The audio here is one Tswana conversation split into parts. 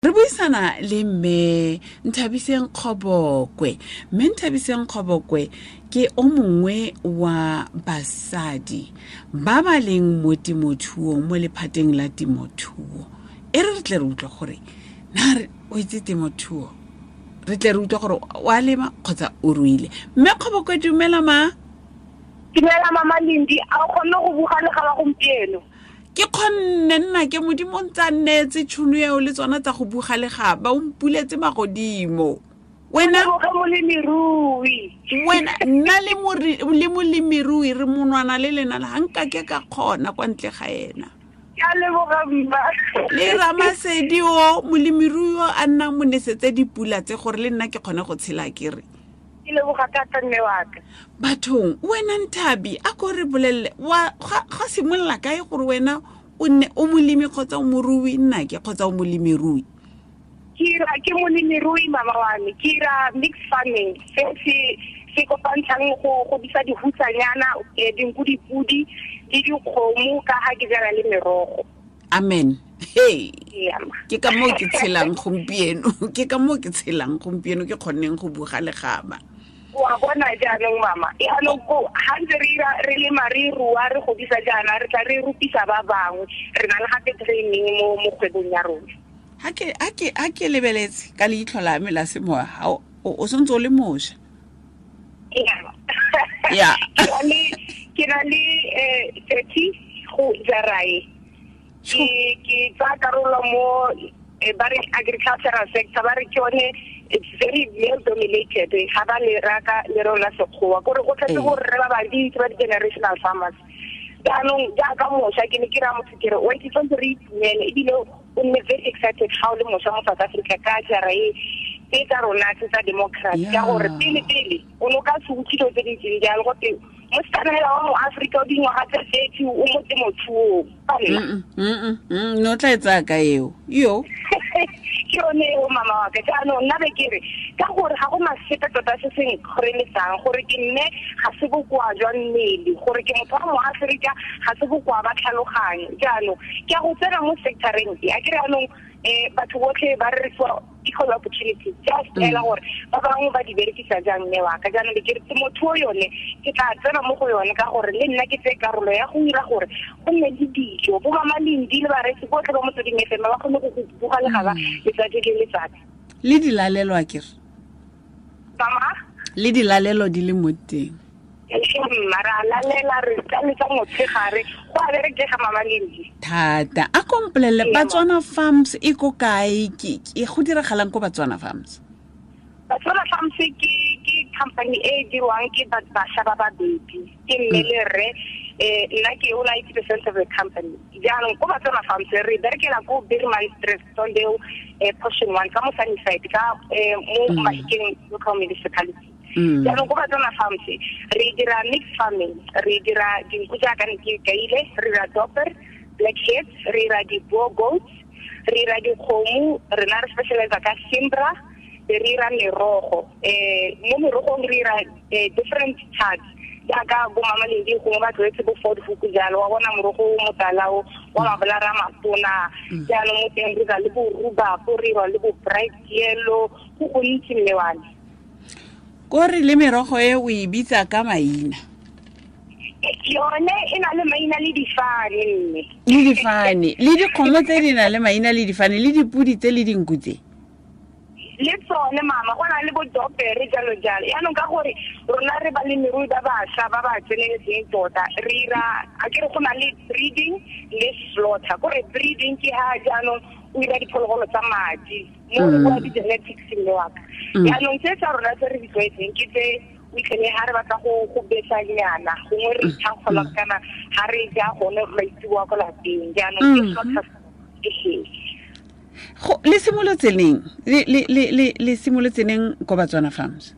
Re buisana le mme Nthabiseng Kgobokwe. Mme Nthabiseng Kgobokwe ke o mongwe wa basadi ba ba leng mo temothuong, mo lephateng la temothuo. E re re tle re utlwe gore na re o itse temothuo, re tle re utlwe gore o a lema kgotsa o ruile. Mme Kgobokwe, dumela ma. Dumela mama Lindi, a o kgonne go buga le ga ba gompieno? Ke kgonne nna, ke Modimo ntse a nneetse tšhono eo le tsona tsa go buga legaba, o mpuletse magodimo. Wena molemirui. Wena nna le molemirui re monwana le lena ga nka ke ka kgona kwa ntle ga ena. Ke a leboga mma. Le Ramasedi o molemirui o a nnang mo nesetse dipula tse gore le nna ke kgone go tshela ke re. Ke leboga thata mme wa ka. Bathong, wena Nthabi, a ko re bolelele wa ga simolola kae gore wena o nne o molemi kgotsa o morui nnake kgotsa o molemirui? Ke ra ke molemirui mama wa me, ke ra mixed farming se se se kopantshang go godisa dihutsanyana, dinku, dipudi le dikgomo ka ga ke jala le merogo. Amen. Hey. Ke ka moo ke tshelang gompieno, ke ka moo ke tshelang gompieno, ke kgonneng go buga legaba. Wa bona jaanong mama, jaanong ko ga ntse re ira re lema re rua re godisa jaana, re tla re rupisa ba bangwe, re na le gape training mo kgwebong ya rona. Ha ke lebeletse ka leitlho la me la semoya, ha o santse o le mošwa. Ya. Ke na le 30 go jarae. Ke tsaya karolo mo ba re agricultural sector, ba re ke yone it's very male dominated, ga ba le raka le rona sekgowa gore go tletse gore re ba bantsi ba di-generational farmers. Jaanong jaaka mošwa ke ne ke raya motho ke re wa itse tshwanetse re itumele, ebile o nne very excited ga o le mošwa mo South Africa ka jara e tse tsa rona tse tsa democracy, ka gore pele pele o ne o ka se utlwe dilo tse di ntseng jalo gote mosetsana hela wa mo Afrika o dingwaga tse 30 o mo temothuong. No tla e tsaya ka eo yo. Ke yone eo mama wa ka. Jaanong nna be ke re ka gore ga go masepe tota se se nkgoreletsang gore ke nne ga se bokoa jwa mmele, gore ke motho wa mo Afrika ga se bokoa ba tlhaloganyo. Jaanong ke a go tsena mo sectoreng e, a ke re jaanong batho botlhe ba re fa equal opportunity, just ela gore ba bangwe ba di berekisa jang mme wa ka. Jaanong ke re temothuo yone ke tla tsena mo go yone ka gore le nna ke tseye karolo ya go dira gore go nne le dijo, bo mama Lindi le bareetsi botlhe ba Motsweding FM ba kgone go buga legaba letsatsi le letsatsi. Le dilalelo a kere? Mama? Le dilalelo di le mo teng. Mma, ra lalela re tsa motshegare go a berekega mama Lindi. Thata. A kompolele Batswana Farms e ko kae? Ke go diragalang ko Batswana Farms? Batswana Farms ke company e dirwang ke bašwa ba babedi, ke mme le rre. Nna ke own 80% of the company. Jaanong ko Batswana Farms re berekela ko Bergman Street, Sondeo, portion 1 ka mo Sunnyside, ka mo Mahikeng local municipality. Jaanong ko Batswana Farms re dira mixed farming, re dira dinku jaaka ne ke kaile, re dira dorper, blackheads, re dira di-boer goats, re dira dikgomo, rena re specialize ka Simbra, re dira merogo. Mo merogong re dira different types jaaka bo mama Lindi gongwe ba tlwaetse bo Ford Hook jalo, wa bona morogo o motala o wa mabolara a matona. Jaanong mo teng re dira le bo rhubarb, re dira le bo bright yellow, go gontsi mme wa me. Kore le merogo e o e bitsa ka maina? Yone e na le maina le difane mme. Le difane, le dikgomo tse di na le maina le difane, le dipudi tse le dinku tse. Le tsone mama, go na le bo dopere jalo jalo. Yaanong ka gore rona re balemirui ba bašwa ba ba tseneletseng tota, re ira, a ke re go na le breeding le slaughter. Kore breeding ke ha jaanong o ira diphologolo tsa madi, mo re bua di-genetics mme wa ka. Jaanong tse tsa rona tse re di tlwaetseng ke tse o itlhele ha re batla go besanyana, gongwe re ithankgola kana ha re ja gone maitsiboa ko lapeng. Jaanong ke slaughter ke he. Go le simolotse neng? Le simolotse neng ko Batswana Farms?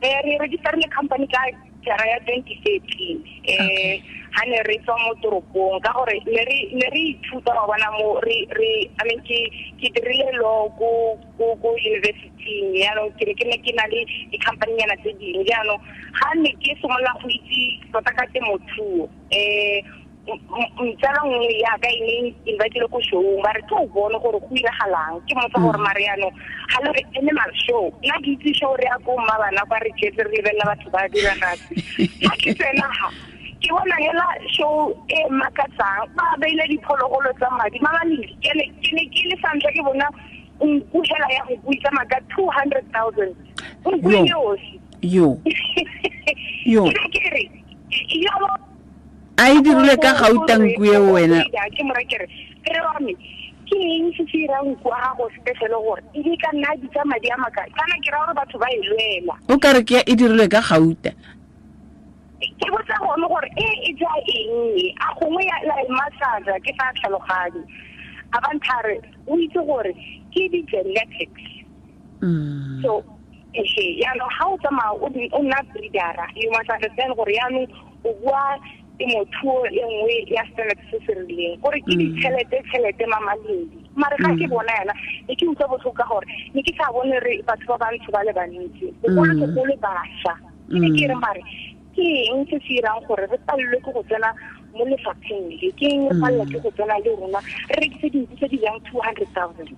Re registerile company ka jara ya 2013. Ha ne re tswa mo toropong ka gore ne re ithuta wa bona mo re I mean ke dirile law ko university, jaanong ke ne ke na le di-company nyana tse dingwe. Jaanong ha ne ke simolola go itse tota ka temothuo, Tsala nngwe yaka e neng invitile ko showng, ba re ke o bone gore go iragalang. Ke motsa gore mare yaanong ga le re animal show, nna ke itse show re ya ko mma bana kwa re jetse re lebelela batho ba diragatse. Ga ke tsena ga ke bona hela show e makatsang, ba beile diphologolo tsa madi mamaledi. Ke ne ke le sa ntlha ke bona nku hela ya go buisa maka 200,000 nku e yosi. Yo yo ke re yo a e dirile ka gauta nku e wena. Ke mo rekere ke re wa me ke eng se se irang nku a gago special gore e di ka nna di tsa madi a maka kana ke ra gore batho ba e lwela. O ka re ke e dirilwe ka gauta. Ke botsa gone gore e ja eng, a gongwe ya la massage ke sa tlhaloganye. A ba nthare o itse gore ke di genetics. So yaanong ga o tsamaya o nna breedera, you must understand gore yaanong o bua temothuo e nngwe ya standard se se rileng gore ke ditšhelete mamaledi. Mare ga ke bona yana ne ke utlwa botlhoko ka gore ne ke sa bone re batho ba bantsho ba le bantsi, bogolosegolo bašwa. Ke ne ke re mare ke eng se se irang gore re palelwe ke go tsena mo lefapheng le, ke eng re palelwa ke go tsena le rona re rekise dinku tse di jang 200,000.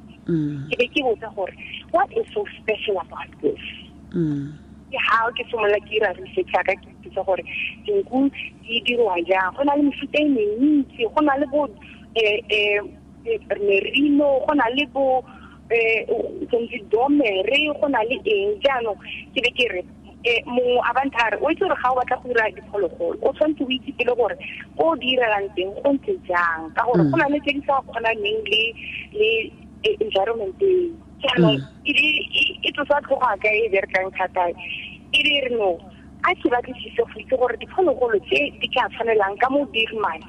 Ke be ke botsa gore what is so special about this? Ke ha ke simolola ke ira research ya ka, ke itse gore dinku di dirwa jang. Go na le mefuta e mentsi, go na le bo merino, go na le bo domere, go na le eng. Jaanong ke be ke re mongwe a banthare o itse gore ga o batla go dira diphologolo o tshwanetse o itse pele gore ko o di irelang teng go ntse jang, ka gore go na le tse di sa kgonaneng le environment eo. Jaanong e tlosa tlhogo ka e berekang thata, e be re no a ke batlisise go itse gore diphologolo tse di ka tshwanelang ka mo Birmane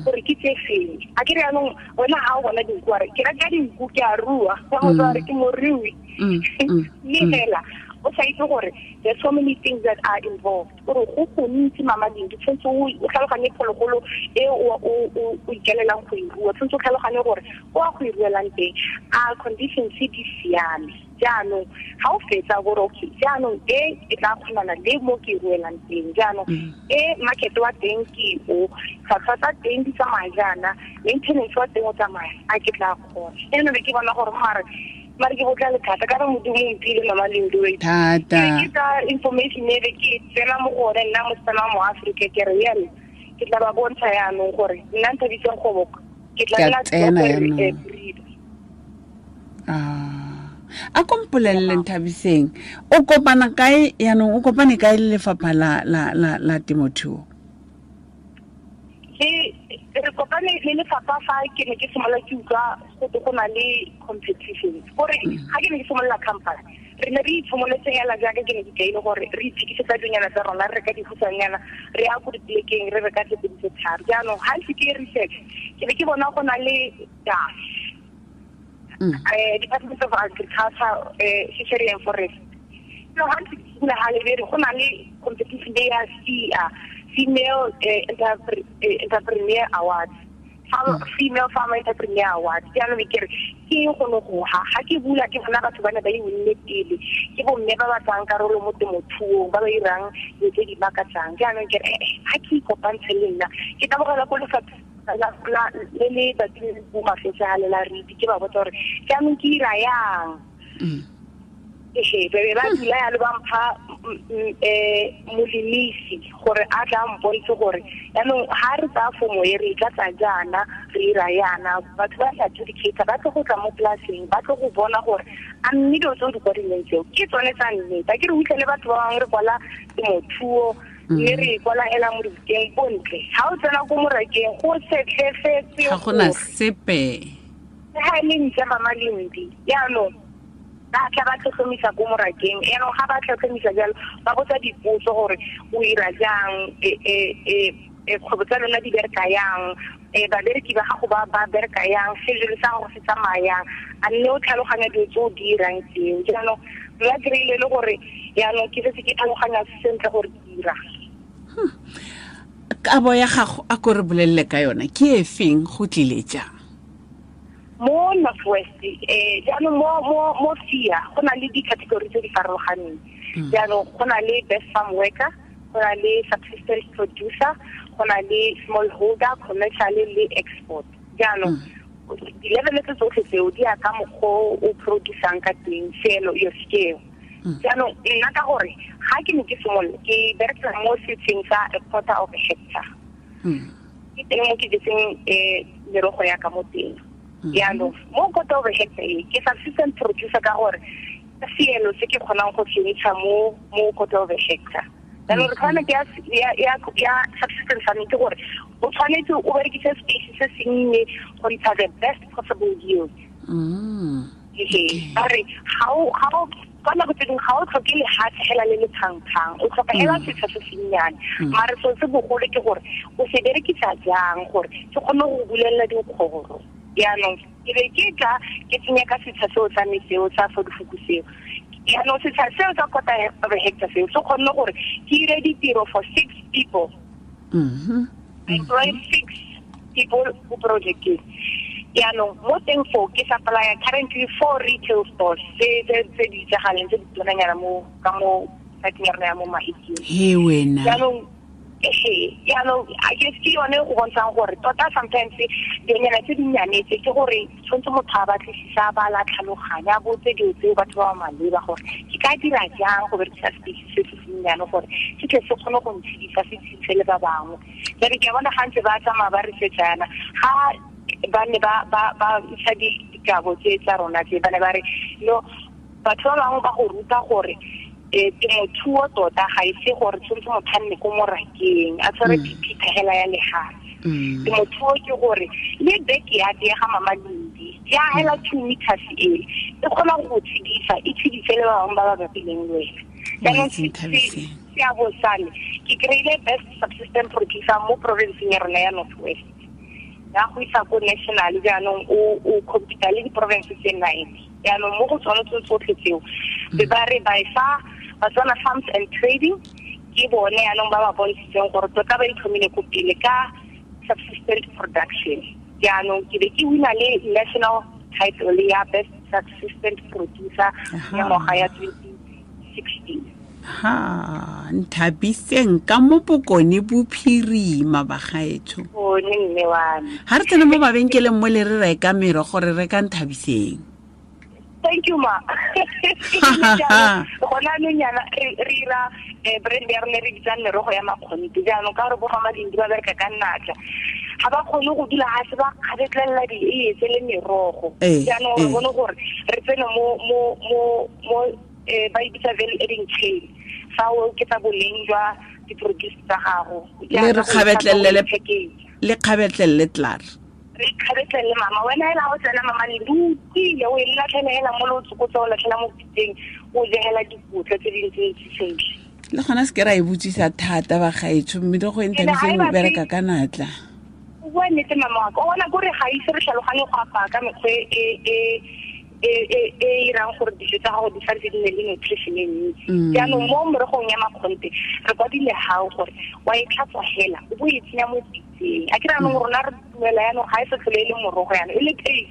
gore ke tse feng. A ke re yaanong wena ga o bona dinku a re ke reka dinku ke a rua, ka go re ke morui, mme fela o sa itse gore there's so many things that are involved. Gore go gontsi mamading, ke tshwanetse o tlhaloganye phologolo e o ikelelang go e rua, tshwanetse o tlhaloganye gore o a go e ruelang teng a conditions di siame. Jaanong ga o fetsa gore okay jaanong e e tla kgonana le mo ke e ruelang teng, jaanong e market wa teng ke o, tlhwatlhwa tsa teng di tsamaya jaana, maintenance wa teng o tsamaya, a ke tla kgona. Eno be ke bona gore mare ke botla le thata ka re Modimo o mphile mama Lindiwe thata. Ke ka information e be ke tsena mo go one nna mosetsana wa mo Afrika, ke re yalo ke tla ba bontsha yaanong gore nna Nthabiseng Kgoboko ke tla nna tsena yaanong. A kompolelele Nthabiseng, o kopana kae yaanong, o kopane kae le lefapha la temothuo? Re kopane le lefapha fa ke ne ke simolola ke utlwa go na le competitions. Gore ga ke ne ke simolola company, re ne re itshimoletse hela jaaka ke ne ke kaile gore re itsekisetsa dinyana tsa rona, re reka dihutshanyana, re ya ko dipolekeng, re reka tse pedi tse tharo. Jaanong ga ntse ke research, ke be ke bona go na le DAF, Department of Agriculture, Fishery and Forest. No, ga ntse ke simolola ga lebere go na le competition ya CA, Female Entrepreneur Awards, Female Farmer Entrepreneur Awards. Jaanong ke re ke eng go ne go ha ga ke bula ke bona batho ba ne ba e winne pele, ke bomme ba ba tsayang karolo mo temothuong, ba ba irang dilo tse di makatsang. Jaanong ke re ga ke ikopantshe le nna, ke tabogela ko lefapha le le batlile bo mafetsa le la riti, ke ba botsa gore jaanong ke ira yang. Be ba dula yalo ba mpha molemisi gore a tla mpontshe gore yaanong ga re tsaya fomo e re tla tsa jaana, re ira yana, batho ba tla adjudicate, ba tlo go tla mo polaseng, ba tlo go bona gore a mme dilo tse o di kwadileng tseo ke tsone tsa nnete. A ke re utlwele batho ba bangwe re kwala temothuo mme re kwala hela mo dibukeng bontle, ga o tsena ko morakeng go setlhefetse, ga gona sepe, ga e le ntle mama Lindi. Jaanong ba tla ba tlhotlhomisa ko morakeng, yaanong ga ba tlhotlhomisa jalo ba botsa dipotso gore o ira jang, kgwebo tsa lona di bereka yang, babereki ba gago ba bereka yang, schedule sa gago se tsamaya yang, a nne o tlhaloganya dilo tse o di irang tseo. Jaanong nna kry-ile le gore yaanong ke setse ke tlhaloganya sentle gore ke ira. Kabo ya gago a ko re bolelele ka yona ke e feng, go tlile jang? Mo North West, jaanong mo FIA go na le di-category tse di farologaneng. Jaanong go na le best farm worker, go na le subsistence producer, Go na le smallholder, commercial le export. Jaanong di-level tse tsotlhe tseo di ya ka mokgwa o producang ka teng, selo your scale. Jaanong nna ka gore ga ke ne ke simolola ke berekela mo setsheng sa a quarter of a hectare, ke teng mo ke jetseng merogo ya ka mo teng. Jaanong mo quarter of a hectare e ke subsistence producer ka gore seelo se ke kgonang go se ntsha mo quarter of a hectare. Jaanong requirement ya subsistence farming ke gore o tshwanetse o berekise space se sennye go ntsha the best possible yield. Ba re ga o ka nako tse dingwe ga o tlhoke lehatshe hela le le tshangtshang, o tlhoka hela setsha se sennyane, mare seo se bogolo ke gore o se berekisa jang gore se kgone go bulelela dikgoro. Jaanong ke be ke tla ke tsenya ka setsha seo sa me seo sa fodifuku seo. Jaanong setsha seo sa quarter of a hectare seo se kgonne gore ke ire ditiro for 6 people. I employ 6 people mo projecteng. Jaanong mo teng foo ke supplya currently 4 retail stores tse di itsagaleng, tse di tonanyana mo ka mo siteng ya rona ya mo Mahikeng. He wena. Jaanong jaanong I guess ke yone go bontshang gore tota sometimes dinonyana tse dinnyane tse ke gore tshwanetse motho a batlisisa, ba la tlhaloganya, a botse dilo tseo batho ba ba maleba gore ke ka dira jang go berekisa space se se sennyane gore se tle se kgone go ntshedisa, se tshedise le ba bangwe. Jaanong ke a bona ga ntse ba tsamaya ba research yana, ga ba ne ba ntsha dikabo tse tsa rona tse, ba ne ba re no, batho ba bangwe ba go ruta gore temothuo tota ga e se gore tshwanetse motho a nne ko morakeng a tshware phiphitlha hela ya lehatshe. Temothuo ke gore le backyard ya ga Mama Lindi ya hela 2 meters e kgona go tshedisa, e tshedise le ba bangwe ba ba bapileng le wena. Jaanong seabo sa me ke kry-ile best subsistence producer mo provinceng ya rona ya North West, ya go isa ko national. Jaanong o compete le di-province tse 9. Jaanong mo go tsone tse tsotlhe tseo be ba re by far Batswana Farms and Trading ke bone jaanong ba ba bontshitseng gore tota ba itlhomile ko pele ka subsistence production. Jaanong ke be ke wina le national title ya best subsistence producer ya ngwaga ya 2016. Ha, Nthabiseng ka mo Bokone Bophirima bagaetsho. Bone mme wa me. Ha re tsena mo mabenkeleng mo le re reka merogo, re reka Nthabiseng. Thank you ma. Gona anong yana re ira brand ya rona re bitsang merogo ya makgonthe. Jaanong ka gore bo Mama Lindi ba bereka ka natla, ga ba kgone go dula ga se ba kgabetlelela di-eiye tse le merogo. Jaanong re bone gore re tsene mo ba e bitsa value adding chain, fa o oketsa boleng jwa di-produce tsa gago. Le re kgabetlelele, le kgabetlelele tlar. Re kgabetlelele mama, wena hela ha o tsena mama Lindi o utlwile, o e latlhela hela mo le o tsokotsa, o latlhela mo pitseng, o jegela dikotla tse dintsi sentle. Le gona se ke ra e botsisa thata bagaetsho, mme le go e Nthabiseng o bereka ka natla. O bua nnete mama wa ka, o bona kore ga ise re tlhaloganye go apaya ka mekgwa e irang gore dijo tsa gago di santse di nne le nutrition e ntsi. Jaanong mo merogong ya makgonthe re kwadile gao gore wa e tlhatswa hela o bo e tsenya mo pitseng. A ke re jaanong rona re dumela jaanong ga e sa tlhole e le morogo jaanong e le paste.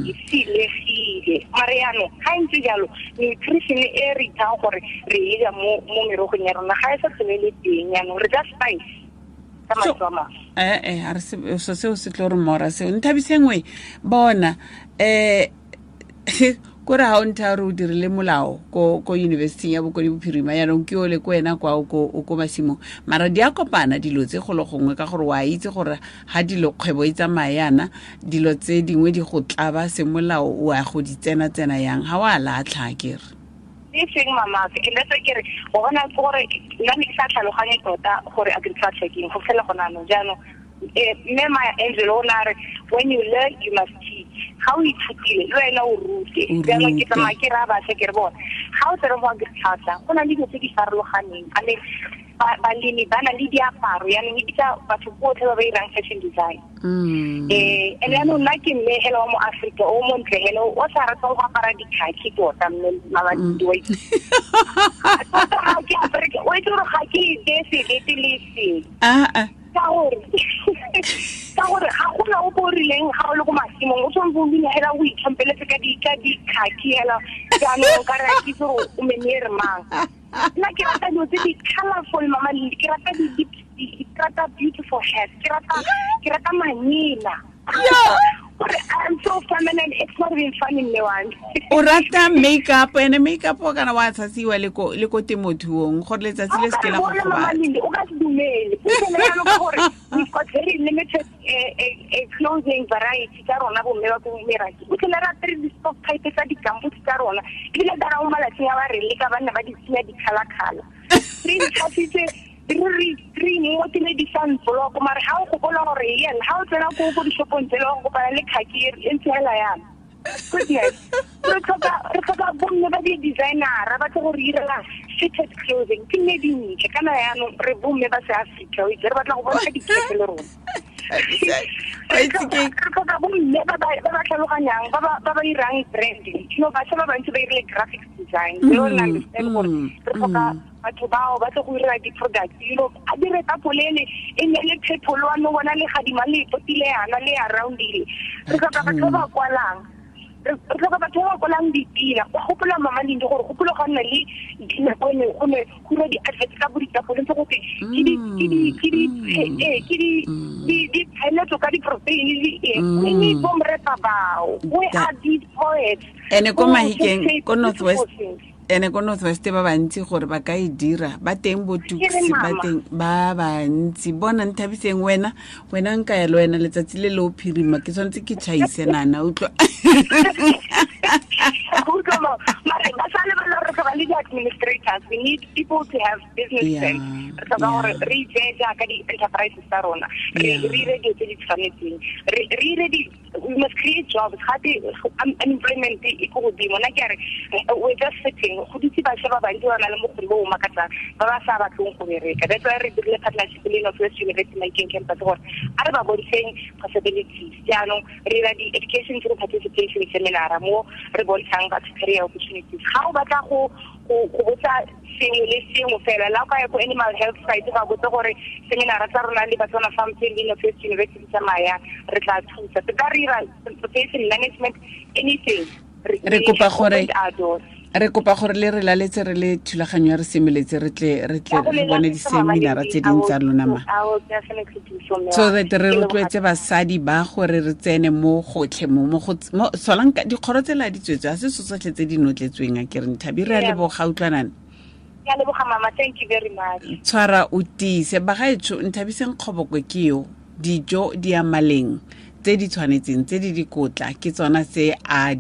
E silegile. Mare jaanong ga e ntse jalo nutrition e re ithang gore re e ja mo merogong ya rona ga e sa tlhole e le teng, jaanong re ja spice. A re so seo se tlo re mora seo. Nthabiseng we bona kore ha o ntha re o dirile molao ko university ya Bokone Bophirima, yaanong ke ole ko wena kwa o ko masimong, mara di a kopana dilo tse golo gongwe ka gore wa itse gore ha dilo kgwebo e tsamaya yana, dilo tse dingwe di go tlaba semolao, o a go di tsena-tsena yang ha wa latlha akere. E seng mama, ke le ke re go bona gore nna ne ke sa tlhaloganye tota gore agriculture ke eng go fela gona anong. Jaanong mme Maya Angelou o ne a re when you learn you must teach. Ga o ithutile le wena o rute. Jaanong ke tsamaya ke raya bašwa ke re bona ga o tsere mo agriculture go na le dilo tse di farologaneng. I mean balemi ba na le diaparo, yaanong e bitsa batho botlhe ba ba irang fashion design. And yaanong nna ke mme hela wa mo Afrika o montle hela o sa ratang go apara dikhakhi tota mme Mama Lindi wa itse. Tota ga ke apare, o itse gore ga ke iteye sebete le seng. Ka gore ga gona o bo rileng ga o le ko masimong o tshwanetse o dule hela o itlhompeletse ka dikhakhi hela, jaanong ka re a ke itse gore o menere mang. Nna ke rata dilo tse di colorful, mama Lindi. Ke rata di ke rata beautiful hairs. Ke rata manyena. Gore I'm so feminine, it's not even funny, mme wa me. O rata makeup, ene makeup o kana wa tshasiwa le ko temothuong gore letsatsi le se ke la go gobatsa. O ka se dumele. O dumele ka gore we've got very limited clothing variety tsa rona bomme ba ko meraki. O tlhela ra apere di-stock type tsa di-gumboot tsa rona. Ebile ka ra mo malatsing a ba re leka banna ba di tsenya di-colour-colour. Re ntshasitse re ngotile di-sunblock, mare ha o gopola gore yen ha o tsena ko dishopong tsele o kopana le khaki e ntse hela yana. Goodness. Re tlhoka bomme ba di-designera ba tle go re irela fitted clothing. Ke nne dintle kana yaanong re bomme ba se Africa, o itse re batla go bontsha dikete le rona. Re tlhoka bomme ba ba tlhaloganyang, ba ba irang branding. You know, bašwa ba bantsi ba irile graphics design. They don't understand gore re tlhoka batho bao ba tle go ira di-products. You know, a dire tapolele e nne le purple wa no bona le gadima le potile yana le aroundile. Re tlhoka batho ba ba kwalang. Re tlhoka batho ba ba kwalang dipina. O gopola mama Lindi gore gopola ga nna le dinako ne go ne go dira di-adverts ka bo ditapole ntse go twe ke di tsheletso ka di-protein le eng. We need bo mrepa bao. We are these poets. Ene ko Mahikeng, ko North West. Ene ko North West ba bantsi gore ba ka e dira, ba teng bo Tuks, ba teng ba bantsi. Bona Nthabiseng wena nka ya le wena letsatsi le le o phirima, ke tshwanetse ke tšhaise nana, utlwa. Mare ba sa lebala re tlhoka le di-administrators. We need people to have business sense. Re tlhoka gore re itseye jaaka di-enterprises tsa rona, re ire dilo tse di tshwanetseng, re ire di we must create jobs. Gape unemployment e ko godimo. Nna ke a re we're just sitting. Go dutse bašwa ba bantsi ba na le bokgoni bo bo makatsang ba ba sa batleng go bereka. That's why re dirile partnership le North West University Mahikeng campus gore a re ba bontsheng possibilities. Jaanong re dira di-education through participation seminar mo re bontshang batho career opportunities. Ga o batla go botsa sengwe le sengwe fela, la o ka ya ko animal health site ba botse gore seminar tsa rona le Batswana Farm le North West University tsamaya, re tla thusa. Se ka re ira transportation management, anything. Re kopa gore le re laletse re le thulaganyo ya re semeletse re tle re bone di-seminara tse ding tsa lona ma. So that re rotloetse basadi ba gore re tsene mo gotlhe mo solang dikgoro tse la di tswetswe, a se tsotlhe tse di notletsweng a ke re Nthabi. Re a leboga, utlwanana. Ke a leboga mama, thank you very much. Tshwara o tiise bagaetsho. Nthabiseng Kgobokwe ke yo, dijo di ya maleng tse di tshwanetseng tse di dikotla ke tsona tse a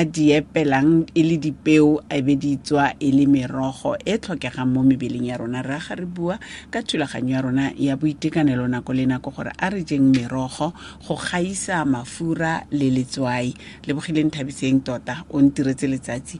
di epelang e le dipeo, a be di tswa e le merogo e tlhokegang mo mebeleng ya rona. Re aga re bua ka thulaganyo ya rona ya boitekanelo nako le nako gore a re jeng merogo go gaisa mafura le letswai. Lebogile Nthabiseng tota, o ntiretse letsatsi.